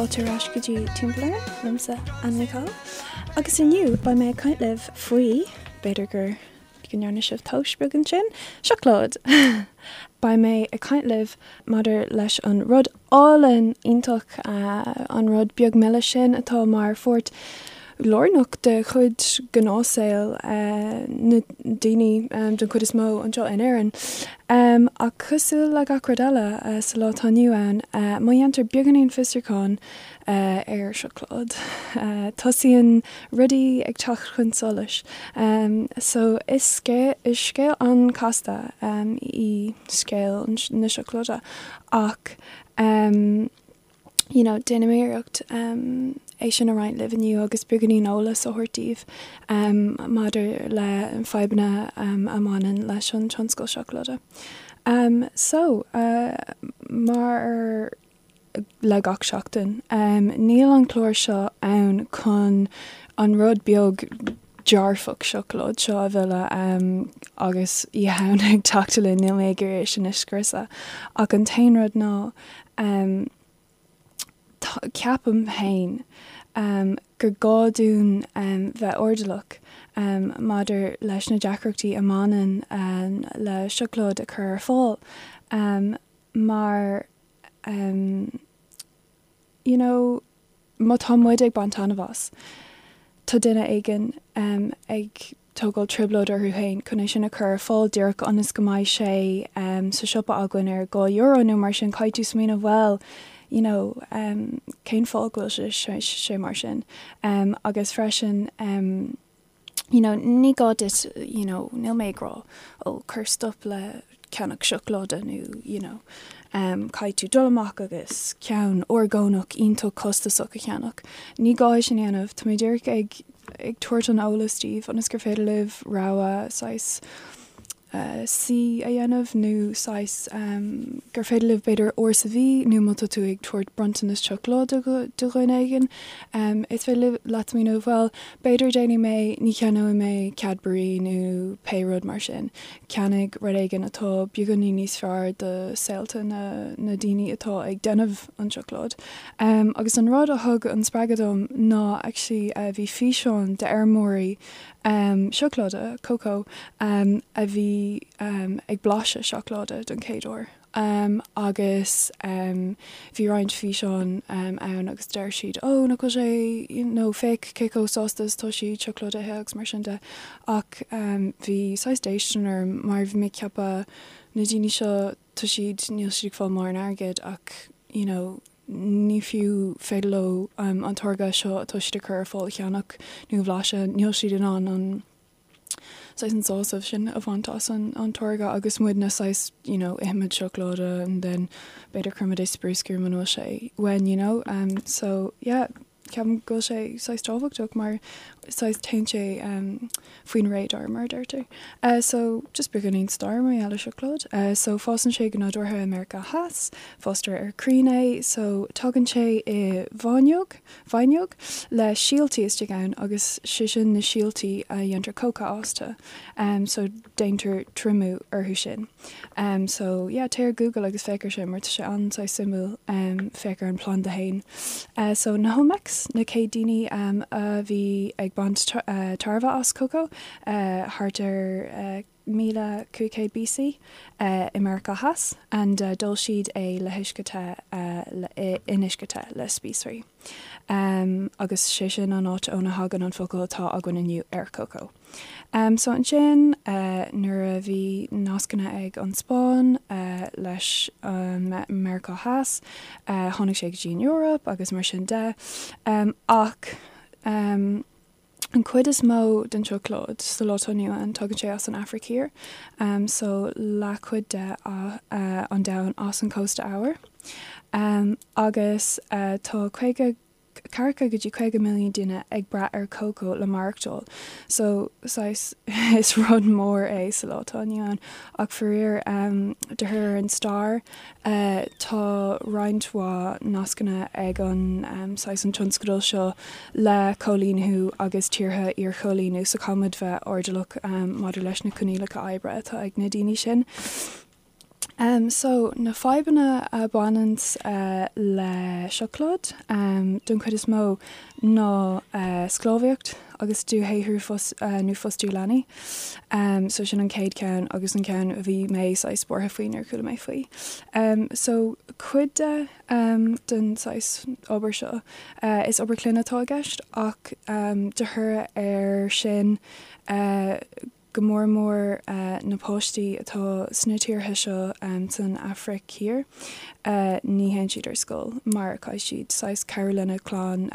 Fáilte ar ais go dtí Timpeall Orainn, liomsa, Anna Ní Chadhain. Agus inniu, beidh mé ag caint libh faoi, b'fhéidir gur go ndearna sibh tomhas beag ansin, seacláid! Beidh mé ag caint libh maidir leis an rud álainn iontach, an rud beag milis sin atá mar pháirt lárnach de chuid gnáthshaol na ndaoine den chuid is mó anseo in Éirinn. Ach cosúil le gach rud eile sa lá atá inniu ann, má dhéantar beagáinín fiosrúcháin ar seacláid, tosaíonn rudaí ag teacht chun solais. So is scéal an-chasta í scéal na seacláide ach you know déanfaidh mé iarracht é sin a roinnt libh inniu agus beagáinín eolas a thabhairt daoibh maidir le fadhbanna a mbaineann leis an tionscal seacláide. So mar le gach seachtain, níl an clár seo ann chun an rud beag dearfach seacláid seo a mhilleadh agus Oíche Shamhna ag teacht linn, níl mé ag iarraidh é sin a scriosadh ach an t-aon rud ná ceapaim féin gur gá dúinn bheith airdeallach maidir leis na deacrachtaí a mbaineann le seacláid a chur ar fáil mar you know má tá muid ag baint taitneamh as, tá duine éigin ag tógáil trioblóid orthu féin chun é sin a chur ar fáil díreach ionas go mbeidh sé sa siopa againn ar €2 nó mar sin, caithfidh tú smaoineamh bhuel, you know, cén fáth go bhfuil sé mar sin? Agus freisin, you know, ní gá duit, you know, níl mé ag rá, oh, cuir stop le ceannach seacláide nó, you know, caithfidh tú dul amach agus ceann orgánach iontach costasach a cheannach. Ní gá é sin a dhéanamh, tá mé díreach ag, ag tabhairt an eolas daoibh ionas gur féidir libh rogha saghas C a dhéanamh nó saghas gur féidir libh b'fhéidir uair sa mhí nó má tá tú ag tabhairt bronntanas seacláide do dhuine éigin, is féidir leat smaoineamh bhuel b'fhéidir déanfaidh mé, ní cheannóidh mé Cadbury nó pé rud mar sin, ceannaigh rud éigin atá beagáinín níos fearr do saolta na na daoine atá ag déanamh an tseacláid. Agus an rud a thug an spreagadh dom ná actually bhí físeán d'fheirmeoirí Seacláide, cocoa, a bhí ag blaiseadh seacláide don chéad uair agus bhí roinnt físeán ann agus deir siad oh nach bhfuil sé nó féach cé chomh sásta is atá siad seacláid a ithe agus mar sin de ach bhí saghas déistin orm mar bhí mé ag ceapadh na daoine seo tá siad níl siad ag fáil mórán airgid ach you know ní fiú féidir leo an táirge seo atá siad ag cur ar fáil a cheannach nó a bhlaiseadh, níl siad in ann an saghas an sásamh sin a bhaint as an an táirge agus muidne saghas you know ithimid seacláide and then b'fhéidir cuirimid é sa bruscar muna bhfuil sé uainn you know so yeah Ceapaim go bhfuil sé saghas tábhachtach mar saghas téann sé faoin radar mar a deirtear. So just beagáinín stair mar gheall ar seacláid. So fásann sé go nádúrtha i Meiriceá Theas, fástar ar crainn é, so tagann sé i bhfáinneog, faighneog, le síoltaí istigh ann agus sé sin na síoltaí a dhéantar cóca astu. So déantar triomú orthu sin. So yeah, téigh ar Google agus féach ar sin mar tá sé an-saghas suimiúil féach ar an planda fhéin. So na hOlmecs, na chéad daoine a bhí ag baint tairbhe as cócó thart ar 1500 BC i Meiriceá Theas and d'ól siad é le huisce te in uisce te le spíosraí. Agus sé sin an áit óna thagann an focal atá againn inniu ar cócó. So ansin nuair a bhí nascanna ag an Spáinn leis Meiriceá Theas, tháinig sé go dtí an Eoraip agus mar sin de. Ach an chuid is mó den tseacláid sa lá atá inniu ann, tagann sé as an Afraic Thiar. So leathchuid de an domhan as an cósta eabhair. Agus tá 50 40 go dtí 50 milliún duine ag brath ar cócó le maireachtáil so saghas is rud mór é sa lá atá inniu ann ach faraor de thoradh ar an stair tá roinnt mhaith nascanna ag an saghas an tionscadal seo le coilíniú agus tíortha iarchoilíniú so caithfimid bheith airdeallach maidir leis na coinníollacha oibre atá ag na daoine sin. So, na fadhbanna a bhaineanns le seacláid, don chuid is mó, ná sclábhaíocht agus dúshaothrú nó fostú leanaí. So sin an chéad cheann agus an ceann a bhí mé saghas buartha faoi nuair a chuala mé faoi. So cuid de den saghas obair seo, is obair clainne atá i gceist ach de thoradh air sin, go mór mór na páistí atá sna tíortha seo san Afraic Thiar, ní théann siad ar scoil mar caithfidh siad saghas cabhrú lena gclann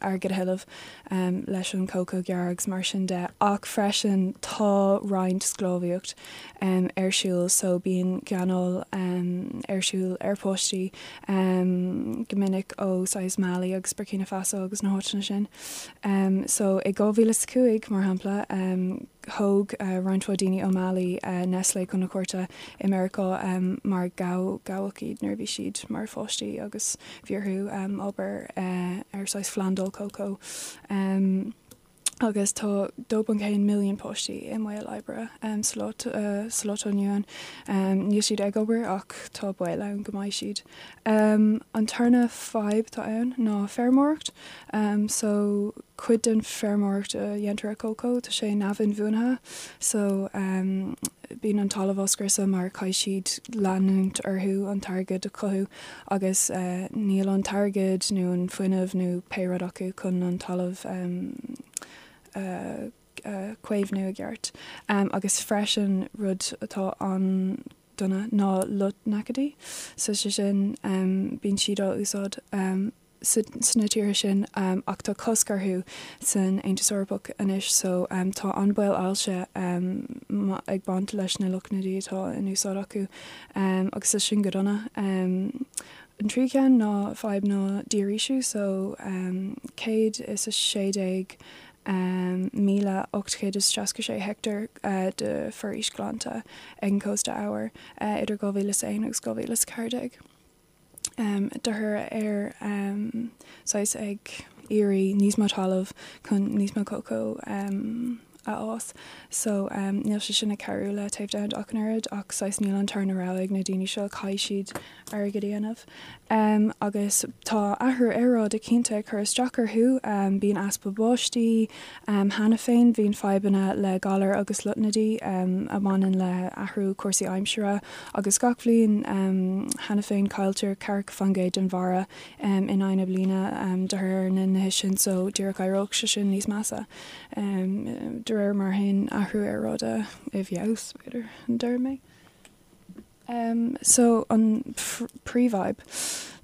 airgead a thuilleamh leis an cócó a ghearradh agus mar sin de. Ach freisin tá roinnt sclábhaíocht ar siúl so bíonn gáinneáil ar siúl ar pháistí go minic ó saghas Mali agus Burkina Faso agus na háiteanna sin. So i 2005, mar shampla, thóg roinnt mhaith daoine ó Mali Nestlé chun na cúirte i Meiriceá mar gabhadh iad nuair a bhí siad mar pháistí agus bhí orthu obair ar saghas phlandáil cócó. Agus tá 2.1 milliún páistí i mbaol oibre sa lá atá inniu ann. Níl siad ag obair ach tá baol ann go mbeidh siad. An tarna fadhb atá ann ná feirmeoireacht. So cuid den feirmeoireacht a dhéantar ar cócó, tá sé neamh-inbhuanaithe. So bíonn an talamh á scriosadh mar caithfidh siad leanúint orthu an t-airgead a chothú agus níl an t-airgead nó an fuinneamh nó pé rud acu chun an talamh a chaomhnú i gceart. Agus freisin rud atá an dona ná lotnaidicídí. So sé sin, bíonn siad á úsáid sna tíortha sin ach tá cosc orthu san Aontas Eorpach anois so tá an baol ailse ag baint leis na lotnaidí atá in úsáid acu agus tá sin go dona. An tríú ceann ná fadhb ná dífhoraoisiú so 116 1,866 heicteár de foraois glanta ag an cósta eabhair idir 2001 agus 2014. De thoradh ar saghas ag iarraidh níos mó talamh chun níos mó cócó a fhás. So níl sé sin ag cabhrú le téamh domhanda ach an oiread ach saghas níl an tarna rogha ag na daoine seo, caithfidh siad airgead a dhéanamh. Agus tá athrú aeráide cinnte ag cur isteach orthu, bíonn easpa báistí cheana féin, bíonn fadhbanna le galair agus lotnaidí a bhaineann le athrú cúrsaí aimsire agus gach bhliain cheana féin cailltear 40% den bharra in aghaidh na bliana de thoradh ar na nithe sin so díreach éireoidh sé sin níos measa de réir mar a théann athrú aeráide i bhfeabhas, b'fhéidir, deir mé. So an príomhfhadhb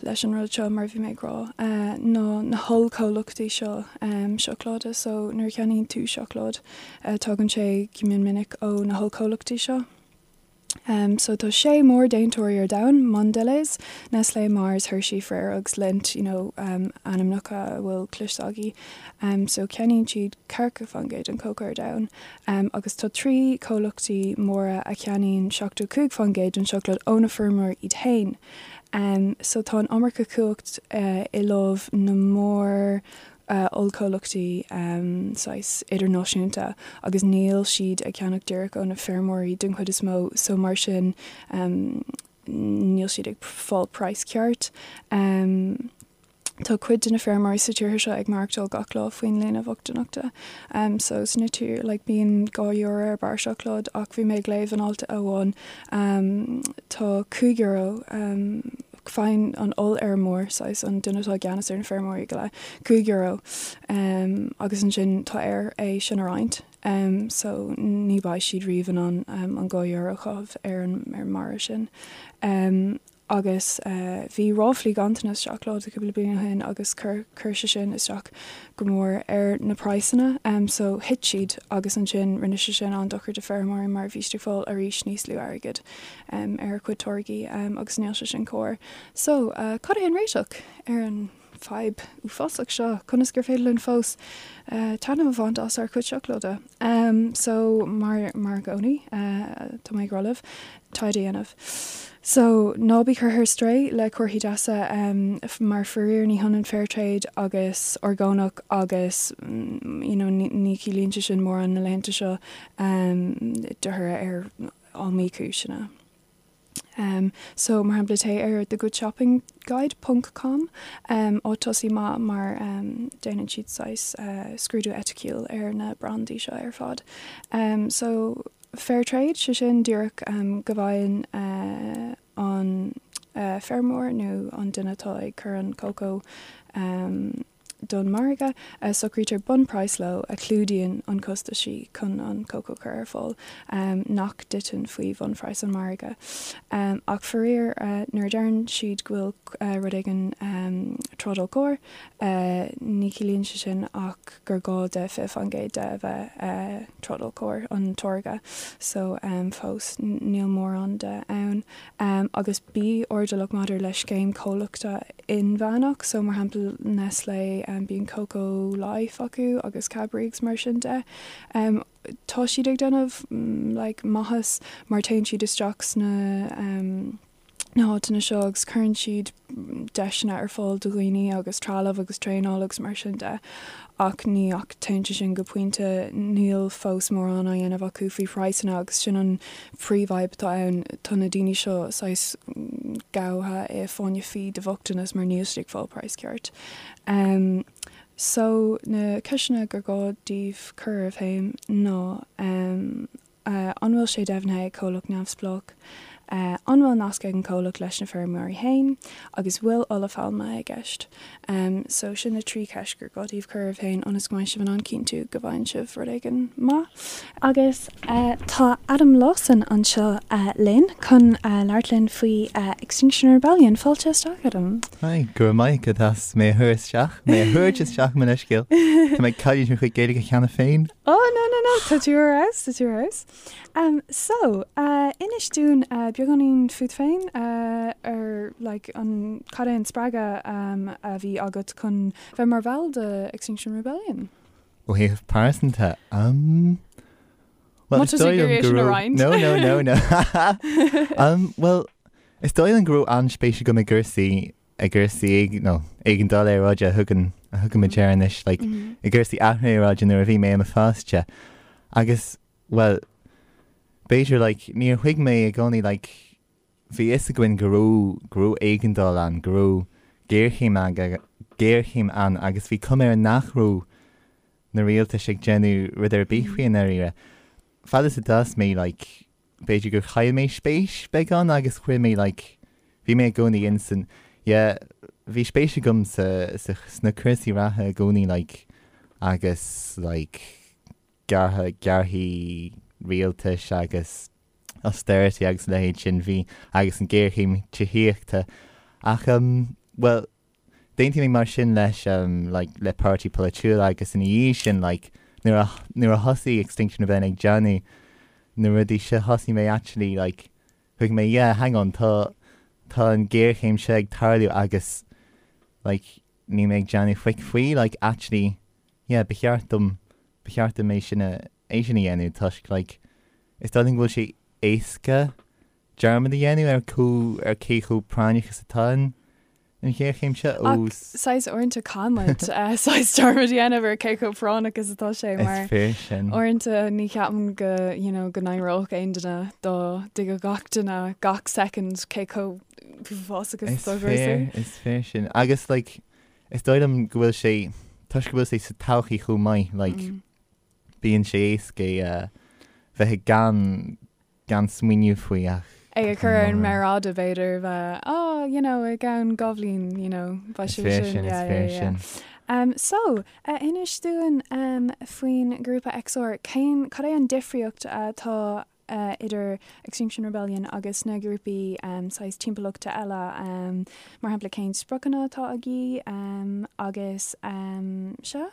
leis an rud seo, mar a bhí mé ag rá, ná na hollchomhlachtaí seo seacláide. So nuair a cheannaíonn tú seacláid, tagann sé go mion minic ó na hollchomhlachtaí seo. So tá sé mór-déantóirí ar domhan, Mondelez, Nestlé, Mars, Hershey, Ferrero agus Lindt, you know, ainmneacha a bhfuil cloiste agaibh. So ceannaíonn siad 40% den cócó ar domhan. Agus tá 3 comhlachtaí móra a cheannaíonn 75% den seacláid ó na feirmeoirí iad féin. So tá an iomarca cumhacht i lámh na mór ollchomhlachtaí saghas idirnáisiúnta agus níl siad ag ceannach díreach ó na feirmeoirí den chuid is mó so mar sin níl siad ag fáil praghas ceart. Tá cuid de na feirmeoirí sa tíortha seo ag maireachtáil gach lá faoin líne bhochtaineachta. So sna tír like bíonn €2 ar barra seacláid ach bhí mé ag léamh in alt amháin tá €5 faigheann an ollfheirmeoir, saghas an duine atá i gceannas ar na feirmeoirí go léir, €5 agus ansin tá air é sin a roinnt. So ní bheidh siad riamh in ann an €2 a chaitheamh ar an mbarra sin. Agus bhí ráflaí ganntanas seacláide cúpla bliain ó shin agus chuir sé sin isteach go mór ar na praghsanna. So thit siad agus ansin rinne sé sin an-dochar do feirmeoirí mar bhí siad ag fáil arís níos lú airgid ar a gcuid táirgí agus níl sé sin cóir. So cad é an réiteach ar an fadhb uafásach seo? Conas gur féidir linn fós taitneamh a bhaint as ár gcuid seacláide? So mar mar i gcónaí tá mé ag rá libh taighde a dhéanamh. So ná bí curtha ar strae le comharthaí deasa mar faraor ní hionann fair trade agus orgánach agus you know ní chiallaíonn sé sin mórán na laethanta seo de thoradh ar iomaí cúiseanna. So, mar shampla, téigh ar The Good Shopping Guide ponc com, áit tosaigh maith mar déanann siad saghas scrúdú eiticiúil ar na brandaí seo ar fad. So, fair trade, sé sin díreach go bhfaigheann an feirmeoir nó an duine atá ag cur an cócó don mhargadh, socraítear bunphraghas leo a chlúdaíonn an costaisí chun an cócó a chur ar fáil, nach dtiteann faoi bhunphraghas an mhargaidh. Ach faraor, nuair a deireann siad go bhfuil rud éigin trádáil cóir, ní chiallaíonn sé sin ach gur gá de 20% de a bheith trádáil cóir, an táirge. So, fós, níl mórán de ann. Agus bí airdeallach maidir le scéim comhlachta inmheánach, so mar shampla Nestlé, bíonn Cocoa Life acu agus Cadbury agus mar sin de. Tá siad ag déanamh like maitheas mar téann siad isteach sna na háiteanna seo agus cuireann siad deiseanna ar fáil do dhaoine agus trealamh agus traenáil agus mar sin de ach ní ach téann sé sin go pointe, níl fós mórán á dhéanamh acu faoi phraghsanna agus sin an phríomhfhadhb atá ann, tá na daoine seo saghas gaibhte i fáinne fí de bhochtanas mar níl siad ag fáil praghas ceart. So na ceisteanna gur gá daoibh cur oraibh féin ná an bhfuil sé deimhnithe ag comhlacht neamhspleách? An bhfuil nasc ag an comhlacht leis na feirmeoirí féin? Agus bhfuil ola phailme i gceist? So sin na 3 cheist gur gá daoibh cur oraibh féin ionas go mbeidh sibh in ann cinntiú go bhfaigheann sibh rud éigin maith. Agus tá Adam Lawson anseo linn chun labhairt linn faoi Extinction Rebellion. Fáilte isteach, Adam. Hi, go raibh maith agat as mé a thabhairt isteach, mé a thabhairt isteach mo leithscéal. Tá mé ag cailliúint mo chuid Gaeilge cheana féin. Oh, no, no, no, tá tú ar fheabhas, tá tú ar fheabhas. So, inis dúinn beagáinín fút féin, ar like an, cad é an spreagadh a bhí agat chun bheith mar bhall de Extinction Rebellion? Ó thaobh pearsanta, um, well, is dóigh liom go raibh, no, no, no, no. um, well, is dóigh liom go raibh an-spéis agam i gcúrsaí i gcúrsaí nó éigeandáil aeráide a thugann a thugaimid air anois, like, i gcúrsaí athrú aeráide nuair a bhí mé i mo pháiste. Agus, well, b'fhéidir, like, níor thuig mé i gcónaí, like, bhí fhios againn go raibh, go raibh éigeandáil ann, go raibh géarchéim ann, géarchéim ann agus bhí cuma air nach raibh na rialtais ag déanamh rud ar bith faoi i ndáiríre. Fad is a d'fhás mé, like, b'fhéidir gur chaill mé spéis beagán agus chuir mé like bhí mé i gcónaí in san yeah bhí spéis agam sa sa sna cúrsaí reatha i gcónaí like agus like gearrtha gearrthaí rialtais agus austerity agus a leithéid sin bhí agus an géarchéim tithíochta ach um well D'aontaigh mé mar sin leis like le páirtí polaitiúil agus ina dhiaidh sin like nuair a nuair a thosaigh Extinction Rebellion ag déanamh na rudaí seo thosaigh mé actually like thuig mé yeah hang on tá tá an géarchéim seo ag tarlú agus like níl mé ag déanamh faic faoi like actually yeah ba cheart dom ba cheart dom é sin a é sin a dhéanamh toisc like is dóigh liom go bhfuil sé éasca dearmad a dhéanamh ar chomh ar cé chomh práinneach is atá an an ghéarchéim seo Ach ós saghas uaireanta caithfidh muid saghas dearmad a dhéanamh ar cé chomh práinneach is atá sé Is mar fíor sin. uaireanta ní cheapaim go you know go n-éireodh aon duine dá dtuigfeadh gach duine gach soicind cé chomh uafásach is Is atá cúrsaí. fíor, is fíor sin. Agus like is dóigh liom go bhfuil sé toisc go bhfuil sé sa todhchaí chomh maith like bíonn sé éasca é a bheith ag gan gan smaoineamh faoi ach. É a chur ar an méar fhada b'fhéidir, bheith, oh, you know, i gceann 2 bhliain, you know, beidh sé sin, sin, yeah, yeah, yeah. Um, so, uh, inis dúinn um, faoin grúpa XR, cén, cad é an difríocht atá uh, idir Extinction Rebellion agus na grúpaí um, saghas timpeallachta eile, um, mar shampla cén spriocanna atá agaibh um, agus um, sea?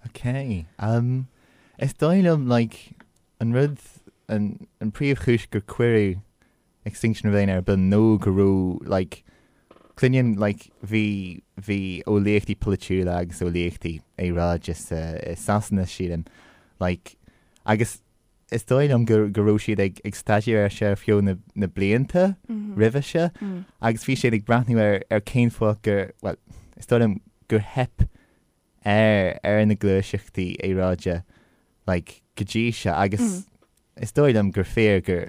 Ok, um, is dóigh liom, like, An rud, an príomhchúis gur cuireadh Extinction Rebellion ar bun nó go raibh like cluinim like bhí bhí eolaíochtaí polaitiúla agus eolaíochtaí aeráide sa i Sasana sílim like agus is dóigh liom go go raibh siad ag ag staidéar air seo ar feadh na na blianta roimhe seo agus bhí siad ag breathnú ar ar cén fáth gur bhuel is dóigh liom gur theip ar ar na gluaiseachtaí aeráide like go dtí seo agus is dóigh liom gur fíor gur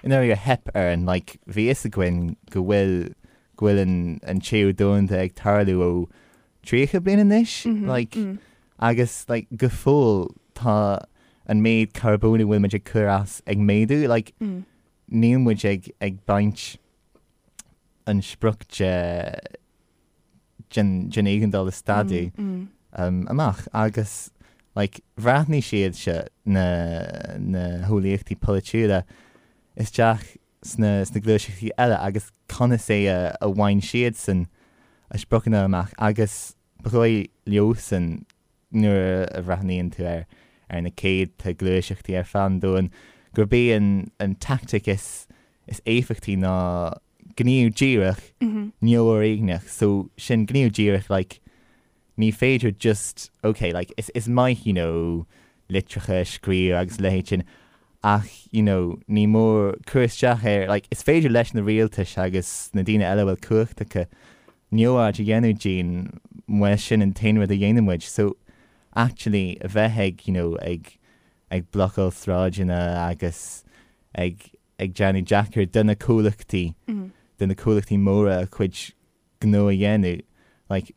i ndáiríre theip orainn, like bhí fhios againn go bhfuil go bhfuil an an téamh domhanda ag tarlú ó 30 bliain anois, like agus like go fóill tá an méid carbóin a bhfuil muid ag cur as ag méadú, like níl muid ag ag baint an sprioc de den den éigeandáil a stadadh amach agus like bhreathnaigh siad seo na na heolaíochtaí polaitiúla isteach sna sna gluaiseachtaí eile agus conas é a a bhain siadsan a spriocanna amach agus ba dhóigh leosan nuair a bhreathnaíonn tú ar ar na céadta gluaiseachtaí ar feadh an domhain, gurb í an an tactic is is éifeachtaí ná gníomh díreach neamhfhoréigneach. So sin gníomh díreach like ní féidir just ok like is is maith you know litreacha a scríobh agus a leithéid sin ach you know ní mór cur isteach ar like is féidir leis na rialtais agus na daoine eile a bhfuil cumhacht acu neamhaird a dhéanamh dínn má sin an t-aon rud a dhéanann muid so actually a bheith ag you know ag ag blocáil sráideanna agus ag ag déanamh deacair do na comhlachtaí do na comhlachtaí móra a chuid gnó a dhéanamh like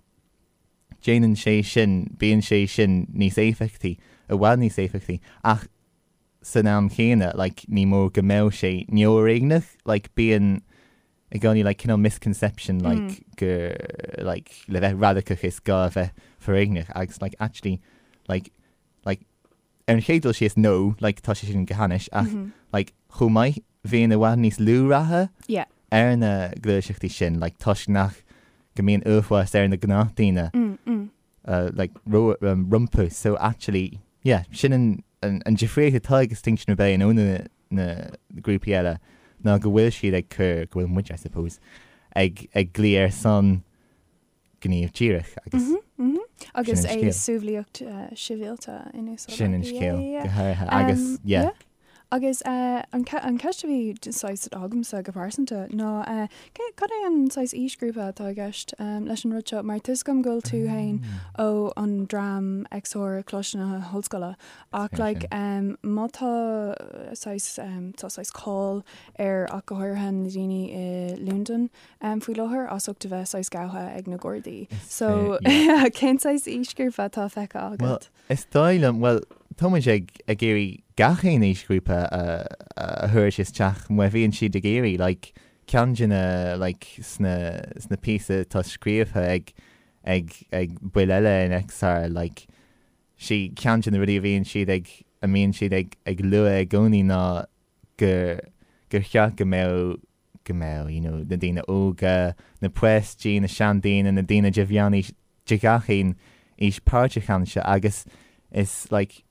déanann sé sin bíonn sé sin níos éifeachtaí i bhfad níos éifeachtaí ach san am chéanna like ní mór go mbeadh sé neamhfhoréigneach like bíonn i gcónaí like cineál misconception like gur like le bheith radacach is gá a bheith foréigneach agus like actually like like ar an chéad dul síos no like tá sé sin go hainnis ach like chomh maith bhíonn i bhfad níos lú ratha Yeah. ar na gluaiseachtaí sin like toisc nach go mbíonn uafás ar na gnáthdhaoine like rompu so actually yeah sin an an an difríocht atá ag Extinction Rebellion ó na na grúpaí eile ná go bhfuil siad ag cur go bhfuil muid I suppose ag ag glaoch ar son gníomh díreach agus Agus Sin an é scéal. sumhlaíocht sibhialta in úsáid sin an scéal go háirithe agus yeah. Agus an cheist a bhí saghas agamsa go pearsanta ná cad é an saghas aoisghrúpa atá i gceist leis an rud seo? Mar tá 'fhios agam go bhfuil tú féin ó an dream XR Coláiste na hOllscoile ach like má tá saghas tá saghas cáil ar ach go háirithe na daoine i Londain faoi láthair as ucht a bheith saghas gabhtha ag na Gardaí. So cén saghas aoisghrúpa atá feicthe agat? Is dóigh liom, bhuel, tá muid ag ag iarraidh gach aon aoisghrúpa a a thabhairt isteach má bhíonn siad ag iarraidh, like, ceann de na, like, sna sna píosa atá scríofa ag ag ag baill eile in XR, like, sí ceann de na rudaí a bhíonn siad ag a mbíonn siad ag ag lua i gcónaí ná gur gur cheart go mbeadh go mbeadh, you know, na daoine óga, na páistí, na seandaoine, na daoine de mheánaois, de gach aon aois páirteach anseo agus is like,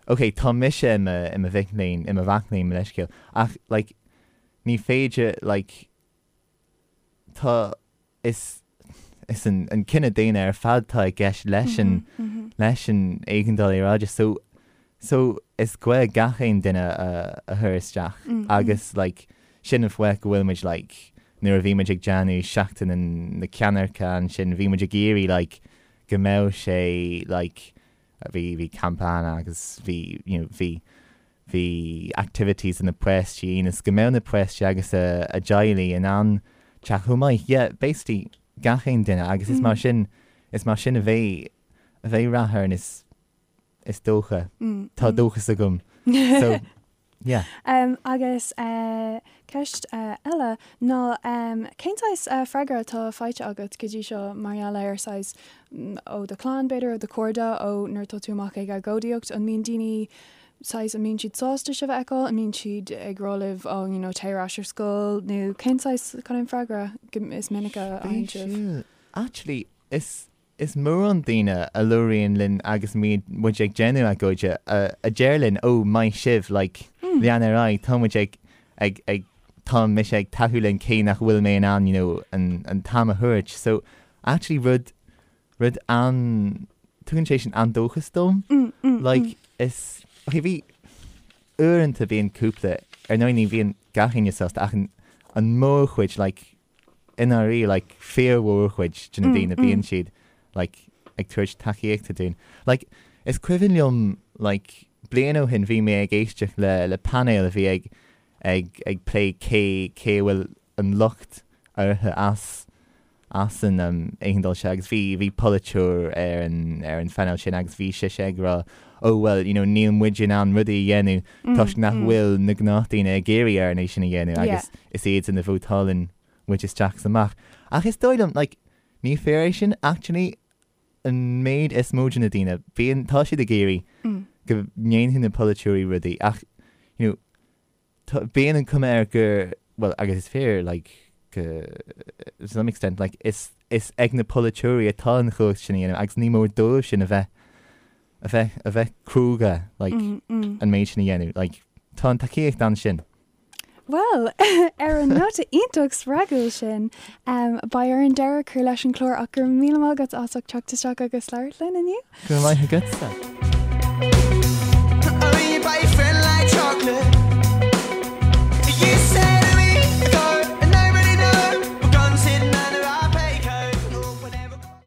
ok, tá mise i mo, i mo mhic léinn, i mo mhac léinn, mo leithscéal, ach like, ní féidir like, tá, is is an an cine daonna ar fad atá i gceist leis an leis an éigeandáil aeráide so so is gá gach aon duine a a chur isteach agus like sin an fáth go bhfuil muid like nuair a bhí muid ag déanamh seachtain na ceannairce ansin bhí muid ag iarraidh like go mbeadh sé like bhí bhí campa ann agus bhí you know bhí bhí activities do na páistí ionas go mbeadh na páistí agus a a dteaghlaigh in ann teacht chomh maith. Yeah, basically gach aon duine agus is mar sin is mar sin a bheidh a bheidh rath orainn is is dócha. Tá dóchas agam. So yeah. Agus ceist eile ná cén saghas freagra atá faighte agat go dtí seo mar gheall ar saghas ó do chlann b'fhéidir, ó do chairde, ó nuair atá tú amach ag agóidíocht, an mbíonn daoine saghas, an mbíonn siad sásta sibh a fheiceáil, an mbíonn siad ag rá libh oh you know téigh ar ais ar scoil nó cén saghas, cad é an freagra is minice a fhaigheann sibh? Actually is is mórán daoine a labhraíonn linn agus muid ag déanamh agóide a a deir linn oh maith sibh like lean ar aghaidh tá muid ag ag ag tá mise ag tacú linn cé nach bhfuil mé in ann you know an an t-am a thabhairt so actually rud rud an tugann sé sin an-dóchas dom like is ok bhí uaireanta bíonn cúpla ar ndóigh ní bhíonn gach éinne sásta ach an an mórchuid like i ndáiríre like fíormhórchuid de na daoine bíonn siad like ag tabhairt tacaíochta dúinn. Like is cuimhin liom like bliain ó shin bhí mé ag éisteacht le le painéal a bhí ag. ag ag plé cé cé a bhfuil an locht orthu as as an éigeandáil seo agus bhí bhí polaiteoir ar an ar an phainéal sin agus bhí sise ag rá oh well you know níl muid in ann rudaí a dhéanamh toisc nach bhfuil na gnáthdhaoine ag iarraidh orainn é sin a dhéanamh agus is iadsan a vótálann muid isteach is amach. Ach is dóigh liom like ní fíor é sin actually an méid is mó de na daoine bíonn tá siad ag iarraidh go ndéanfaidh na polaiteoirí rudaí ach you know tá bíonn an cuma air gur bhuel agus is fíor like go to some extent like is is ag na polaiteoirí atá an chumhacht sin a dhéanamh agus ní mór dóibh sin a bheith a bheith a bheith cróga like an méid sin a dhéanamh like tá an tacaíocht ansin. Bhuel, ar an nóta iontach spreagúil sin, beidh orainn deireadh a chur leis an chlár ach go raibh míle maith agat as ucht teacht isteach agus labhairt linn inniu. Go raibh maith agatsa.